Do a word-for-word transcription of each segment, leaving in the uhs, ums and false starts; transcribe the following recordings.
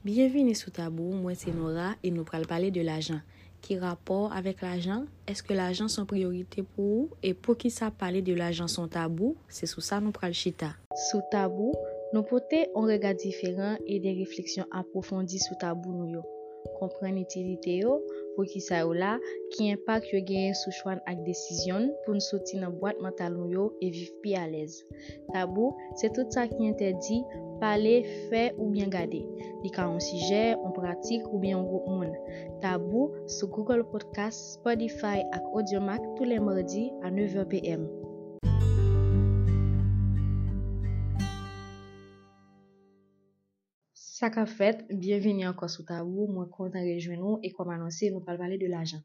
Byenvini sou Tabou, mwen se Nora e nou pral pale de lajan. Ki rapò avèk lajan? Èske lajan se yon priyorite pou ou? E poukisa pale de lajan se yon tabou? Se sou sa nou pral chita. Sou Tabou, nou pote yon rega diferan e de refleksyon apwofondi sou tabou nou yo. Konprann itilite yo, poukisa yo la, ki enpak yo genyen sou chwa n ak desizyon n pou n soti nan bwat mantal nou yo e viv pi alèz. Tabou, se tout sa ki entèdi pale, fè oubyen gade. Li ka yon sijè, yon pratik oubyen yon gwoup moun. Tabou sou Google Podcast, Spotify ak Audiomack tou lè madi a nèf è p m. Sa k ap fèt? Byenvini ankò sou Tabou. Mwen kontan rejwenn ou e kòm anonse, nou pral pale de lajan.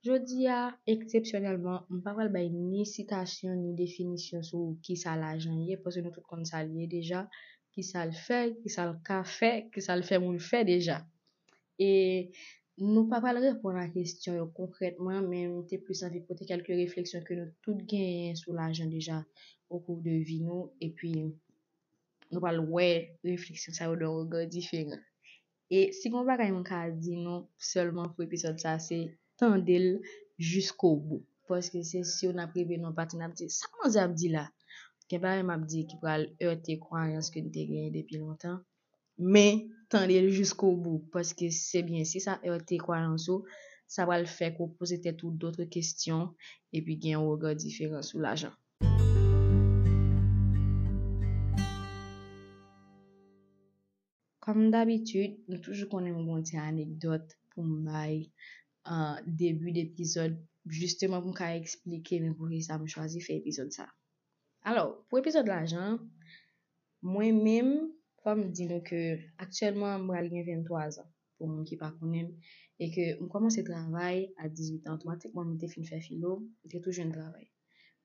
Jodi a, eksepsyonèlman, m pa pral bay ni sitasyon ni definisyon sou kisa lajan ye, paske nou tout konn sa l ye deja, kisa l fè, kisa l ka fè, kisa l fè moun fè deja. E nou pa pral reponn a kesyon yo konkrètman, men m te plis anvi pote kèlke refleksyon ke nou tout genyen sou lajan deja okou de vi nou, epi nou pral wè refleksyon sa yo de yon rega diferan. E si gen yon bagay mwen ka di nou sèlman pou epizòd sa, se tande l jiskobou. Paske se si w n ap rive nan yon pati, n ap di, "Sa manzè ap di la?" Gen bagay m ap di ki pral ète kwayans ke n te genyen depi lontan. Men, tande l jiskobou. Paske se byen, si sa ète kwayans ou, sa pral fè ke w poze tèt ou dòt kesyon, epi gen yon rega diferan sou lajan. Kòm dabitid, nou toujou konnen m gon ti anekdòt pou m bay an debi depizòd, jisteman pou m ka eksplike men poukisa m chwazi fè epizòd sa. Alò, pou epizòd lajan, mwen menm, fò m di nou ke aktyèlman m pral gen venntwa zan, pou moun ki pa konnen m, e ke m kòmanse travay a dizuit an, otomatikman m te fin fè filo, m te tou jwenn travay.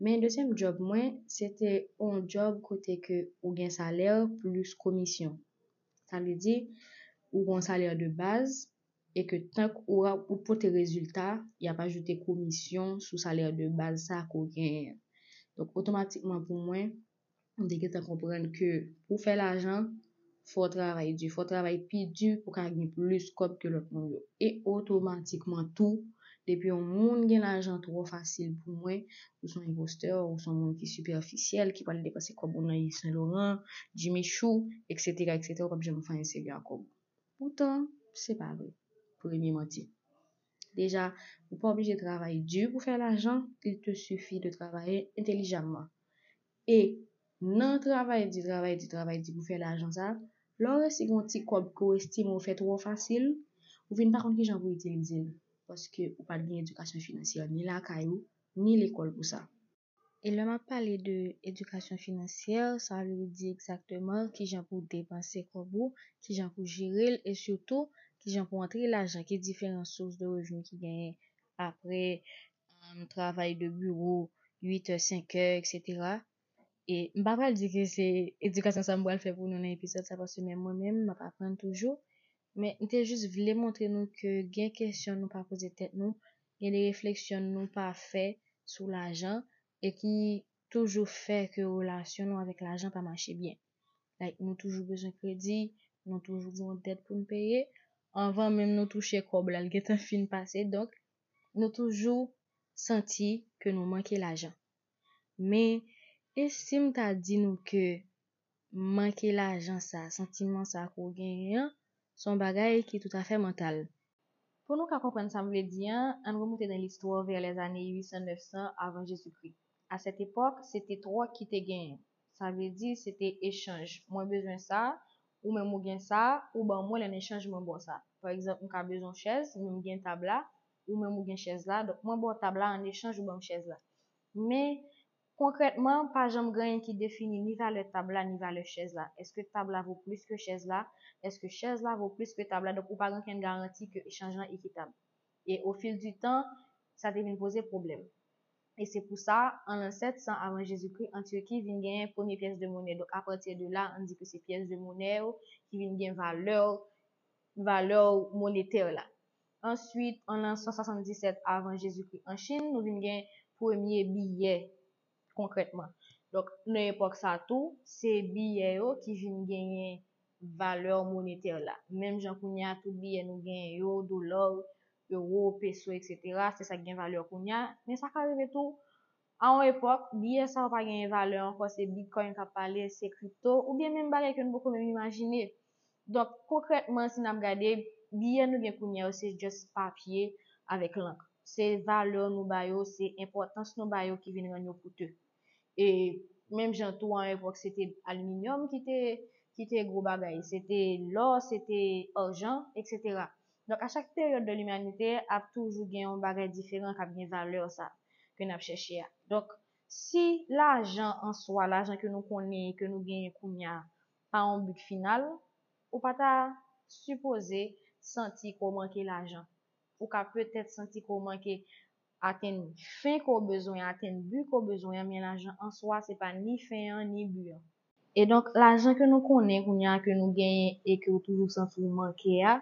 Men dezyèm djòb mwen, se te yon djòb kote ke ou gen salè plis komisyon. Sa vle di, ou gen yon salè de baz, e ke tank ou, ou pote rezilta, y ap ajoute komisyon sou salè de baz sa ke w genyen an. Donk, otomatikman pou mwen, m te gentan konprann ke pou w fè lajan, fò w travay di, fò w travay pi di pou w ka gen plis kòb ke lòt moun yo. E otomatikman tou, depi yon moun gen lajan twò fasil pou mwen, ou se yon enpostè, ou se yon moun ki sipèfisyèl, ki pral depanse kòb ou nan Yves Saint Laurent, Jimmy Choo, et cetera, et cetera, ou p ap janm fè anyen serye ak kòb ou. Poutan, se pa vre. Premye manti. Deja, ou pa oblije travay di pou fè lajan, il te suffit de travailler intelligemment. E nan travay di, travay di, travay di pou fè lajan sa, lè w resi gen yon ti kòb ke w estime w fè twò fasil, ou vin pa konn kijan pou w itilize l, paske ou pa t gen edikasyon finansyè ni lakay ou, ni lekòl pou sa. E lè m ap pale de edikasyon finansyè, sa vle di egzakteman kijan pou w depanse kòb ou, kijan pou w jere l, e sitou kijan pou w antre lajan, ki diferan sous de revni ki genyen apre, um, travay de biwo, uit è, senk è, et cetera. E m pa pral di ke se edikasyon sa m pral fè pou nou nan epizòd sa, paske menm mwen menm, m ap aprann toujou. Men m te jis vle montre nou ke gen kesyon nou pa poze tèt nou, gen de refleksyon nou pa fè sou lajan, e ki toujou fè ke relasyon nou avèk lajan pa mache byen. Like, nou toujou bezwen kredi, nou toujou gen yon dèt pou n peye. Anvan menm nou touche kòb la, l gentan fin pase. Donk, nou toujou santi ke nou manke lajan. Men, e si m ta di nou ke manke lajan sa, santiman sa ke w genyen an, se yon bagay ki toutafè mantal. Pou nou ka konprann sa m vle di an, ann remonte nan listwa vè lèzane uit san, nèf san avan Jezikri. A sèt epòk, se te twòk ki te genyen. Sa vle di, se te echanj. Mwen bezwen sa, ou menm ou gen sa, ou ban mwen l, an echanj mwen ba w sa. Pa egzanp, m ka bezwen yon chèz, men m gen tab la, ou menm ou gen chèz la, donk mwen ba w tab la, an echanj ou ban m chèz la. Men, konkrètman, pa janm gen anyen ki defini ni valè tab la, ni valè chèz la. Èske tab la vo plis ke chèz la? Èske chèz la vo plis ke tab la? Donk, ou pa gen okenn garanti ke echanj lan ekitab. E au fil du temps, sa te vin poze pwoblèm. E se pou sa, an lan sèt san avan Jezikri, an Tiki, vin genyen premye pyès de monè. Donk, apati de la, ann di ke se pyès de monè yo ki vin gen valè, valè monetè la. Answit, an lan san swasanndisèt avan Jezikri, an Chin, nou vin gen premye biyè konkrètman. Donk, nan epòk sa tou, se biyè yo ki vin genyen valè monetè la. Menm jan kounye a, tout biyè nou genyen yo, dola, ewo, peso, etsetera, se sa k gen valè kounye a. Men sa ka rive tou, a yon epòk, biyè sa yo pa genyen valè ankò, se Bitcoin k ap pale, se kripto, oubyen menm bagay ke nou poko menm imajine. Donk, konkrètman, si n ap gade, biyè nou gen kounye a yo, se just papye avèk lank. Se valè nou ba yo, se enpòtans nou ba yo ki vin rann yo koute. E menm jan tou, a yon epòk, se te aliminyòm ki te, ki te gwo bagay, se te lò, se te ajan, etsetera. Donk, a chak peryòd de limanite, ap toujou gen yon bagay diferan k ap gen valè sa ke n ap chèche a. Donk, si lajan an swa, lajan ke nou konnen, ke nou genyen kounye a, pa yon but final, ou pa ta sipoze santi ke w manke lajan. Ou ka petèt santi ke w manke atenn fen ke w bezwen, atenn bi ke w bezwen an, men lajan an swa, se pa ni fen an, ni bi an. E donk, lajan ke nou konnen kounye a, ke nou genyen e ke w toujou santi w manke a,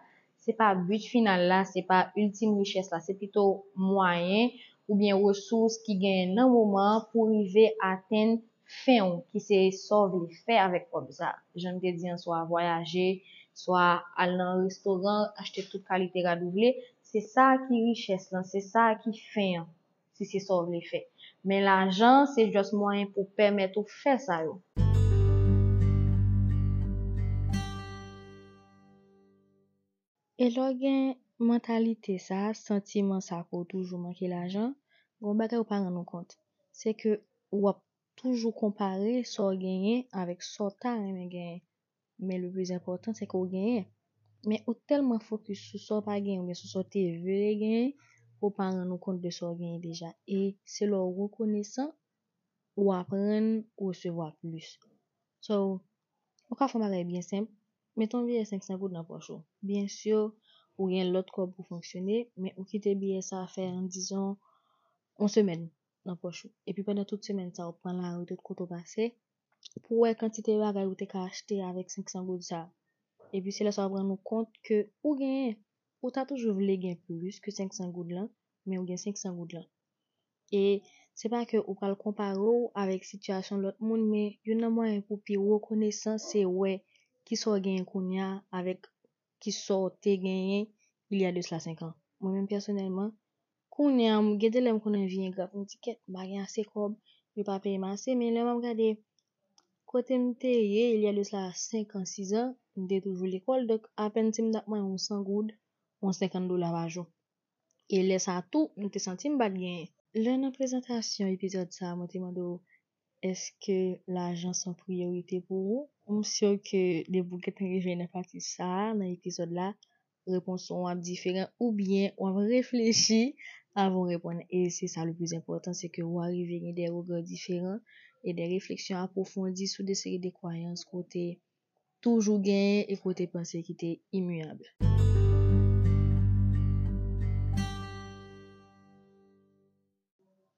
se pa but final la, se pa iltim richès la, se pito mwayen oubyen resous ki genyen nan moman an pou rive atenn fen w, ki se sa w vle fè avèk kòb sa. Jan m te di an, swa vwayaje, swa al nan restoran, achte tout kalite rad ou vle, se sa ki richès lan, se sa ki fen an, si se sa w vle fè. Men lajan, se just mwayen pou pèmèt ou fè sa yo. E lè w gen mantalite sa, santiman sa ke w toujou manke lajan, gen yon bagay ou pa rann ou kont. Se ke w ap toujou konpare sa w genyen avèk sa w ta renmen genyen. Men le plis enpòtan, se ke w genyen. Men ou tèlman fokis sou sa w pa genyen oubyen sou sa w te vle genyen, ke w pa rann ou kont de sa w genyen deja. E se lè w rekonesan, ou aprann resevwa plis. So, ou ka fè yon bagay byen senp, mete yon biyè senk san goud nan pòch ou. Byen si, ou gen lòt kòb pou fonksyone, men ou kite biyè sa fè, an dizon, yon semèn nan pòch ou. Epi pandan tout semèn sa, ou pran lari tout kote w pase, pou w wè kantite bagay ou te ka achte avèk senk san goud sa. Epi se lè sa w ap rann ou kont ke ou genyen. Ou ta toujou vle gen plis ke senk san goud lan, men ou gen senk san goud lan. E se pa ke ou pral konpare w avèk sitiyasyon lòt moun, men youn nan mwayen pou pi rekonesan, se wè kisa w genyen kounye a avèk kisa w te genyen il y a de cela cinq ans. Mwen menm pèsonèlman, kounye a, m gen de lè m konn anvi engra pou m di, kèt, m pa gen ase kòb, yo pa peye m ase, men lè m ap gade kote m te ye, il y a de cela cinq ans, six ans, m te toujou lekòl, donk apèn si m t ap manyen yon san goud, yon senkant dola pa jou. E lè sa a tou, m te santi m pa t genyen. Lè nan prezantasyon epizòd sa a, mwen te mande w, èske lajan se yon priyorite pou ou? M si ke depi w gentan rive nan pati sa a, nan epizòd la, repons ou ap diferan oubyen w ap reflechi avan w reponn. E se sa le plis enpòtan, se ke w arive gen de rega diferan e de refleksyon apwofondi sou de seri de kwayans ke w te toujou genyen e ke w te panse ki te imiyab.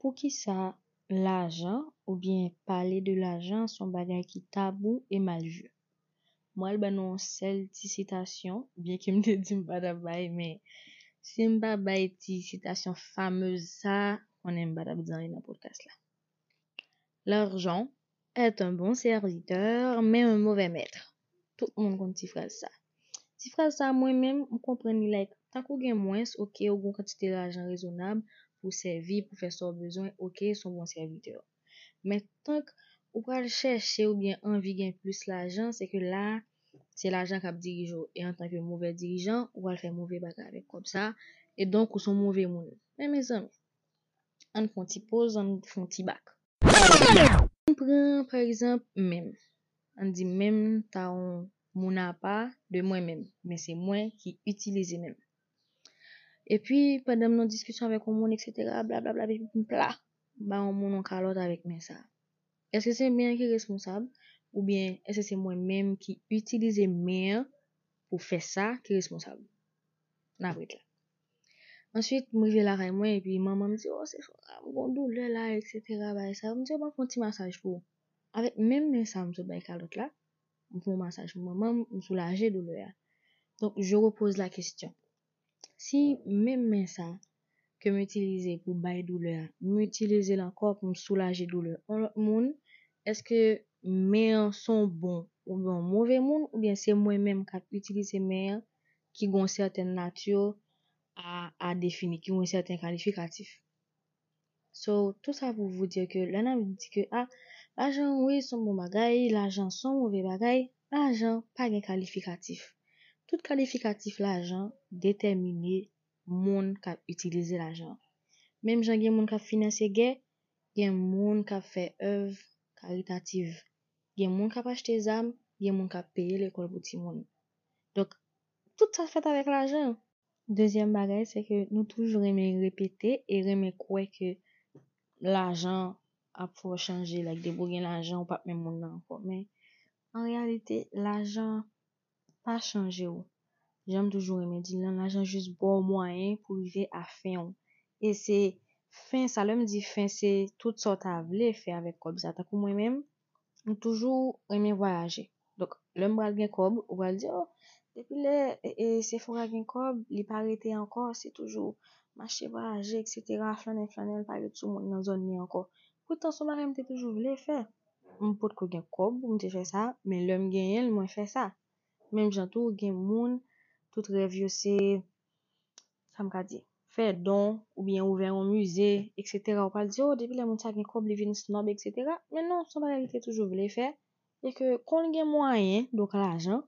Poukisa lajan oubyen pale de lajan se yon bagay ki tabou e mal vu? Mwen al ba nou yon sèl ti sitasyon, byenke m te di m pa t ap bay, men si m pa bay ti sitasyon famez sa, konnen m pa t ap di anyen nan podcast la. L'argent est un bon serviteur, mais un mauvais maître. Tout moun konn ti fraz sa. Ti fraz sa, mwen menm, m konprann li like, tankou gen mwens, oke, ou gen yon kantite lajan rezonab pou sèvi, pou fè sa w bezwen, oke, se yon bon sèvitè. Men tank ou pral chèche oubyen anvi gen plis lajan, se ke la, se lajan k ap dirije w. E antanke move dirijan, ou pral fè move bagay avèk kòb sa, e donk ou se yon move moun. Men mezanmi, ann fè yon ti poz, ann fè yon ti bak. Ann pran, pa egzanp, men m. Ann di men m ta yon moun apa de mwen menm, men se mwen ki itilize men m. Epi, pandan m nan diskisyon avèk yon moun, etsetera, blablabla, epi m pla, ba yon moun yon kalòt avèk men sa. Èske se men an ki responsab? Oubyen èske se mwen menm ki itilize men an pou fè sa ki responsab? N ap ret la. Answit, m rive lakay mwen, epi manman m di, "O, se fò, m gon doulè la, etsetera, bagay sa yo." M di, "O, m ap fè yon ti masaj pou ou." Avèk menm men sa m sot bay kalòt la, m fè yon masaj pou manman m, m soulaje doulè a. Donk, je repose la question. Si menm men sa ke m itilize pou bay doulè a, m itilize l ankò pou m soulaje doulè yon lòt moun, èske men an se yon bon oubyen yon move moun, oubyen se mwen menm k ap itilize men an ki gen yon sètèn nati a, a defini, ki gen yon sèten kalifikatif. So, tout sa pou vous dire ke lè n ap di ke, ah, lajan, wi, se yon bon bagay, lajan se yon move bagay, lajan pa gen kalifikatif. Tout kalifikatif lajan detèmine moun k ap itilize lajan. Menm jan gen moun k ap finanse gè, gen moun k ap fè èv karitativ. Gen moun k ap achte zam, gen moun k ap peye lekòl pou timoun. Donk, tout sa fèt avèk lajan. Dezyèm bagay, se ke nou toujou renmen repete e renmen kwè ke lajan ap fè w chanje, like, depi w gen lajan, ou p ap menm moun nan ankò. Men, an reyalite, lajan pa chanje w. Jan m toujou renmen di l lan, lajan jis ba w mwayen pou rive a fen w. E se fen sa, lè m di fen, se tout sa w ta vle fè avèk kòb sa. Tankou mwen menm, m toujou renmen vwayaje. Donk, lè m pral gen kòb, ou pral di, oh, depi lè e, e, Sephora gen kòb, li pa rete ankò, se toujou mache vwayaje, etsetera, flannen, flannen, l pa ret sou moun nan zòn li ankò. Poutan, se yon bagay m te toujou vle fè. M potko gen kòb pou m te fè sa, men lè m genyen l, mwen fè sa. Menm jan tou, gen moun, tout rèv yo se, sa m ka di, fè don, oubyen ouvè yon mize, etsetera. Ou pral di, oh, depi lè moun sa gen kòb, li vin snob, etsetera. Men non, se yon bagay li te toujou vle fè, e ke kon l gen mwayen, donk lajan,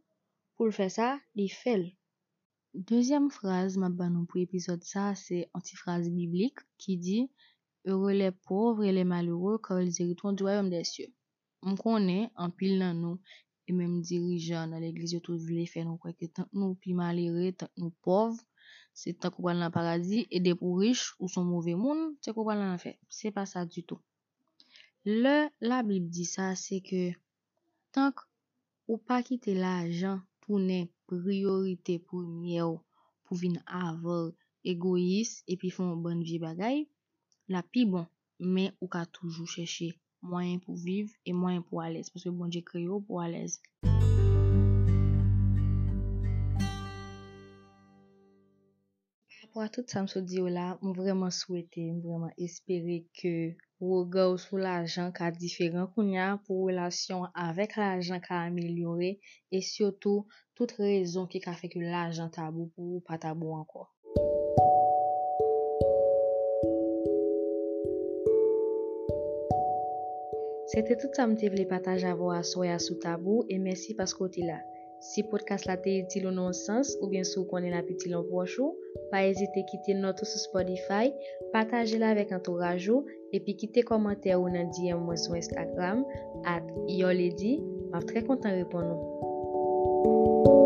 pou l fè sa, li fè l. Dezyèm fraz m ap ba nou pou epizòd sa, se yon ti fraz biblik ki di, Heureux les pauvres et les malheureux, car ils hériteront du royaume des cieux. M konnen anpil nan nou, e menm dirijan nan legliz yo tou vle fè nou kwè ke tank nou pi malere, tank nou pòv, se tank ou pral nan paradi, e depi w rich, ou se yon move moun, se ke w pral nan lanfè. Se pa sa ditou. Lè Labib di sa, se ke tank ou pa kite lajan tounen priyorite premyè w pou vin avan egoyis epi fè yon bann vye bagay, l ap pi bon, men ou ka toujou chèche mwayen pou viv e mwayen pou alèz, paske Bondye kreye w pou alèz. Parapò a tout sa m sot di yo la, m vrèman swete, m vrèman espere ke rega w sou lajan ka diferan kounye a, pou relasyon w avèk lajan ka amelyore, e sitou, tout rezon ki ka fè ke lajan tabou pou ou pa tabou ankò. Se te tout sa m te vle pataje avè w aswè a sou tabou, e mèsi paske w te la. Si podcast la te itil ou nan yon sans, oubyen si w konnen l ap itil yon pwòch ou, pa ezite kite nòt ou sou Spotify, pataje l avèk antouraj ou, epi kite kòmantè ou nan D M mwen sou Instagram, at your lady, m ap trè kontan reponn ou.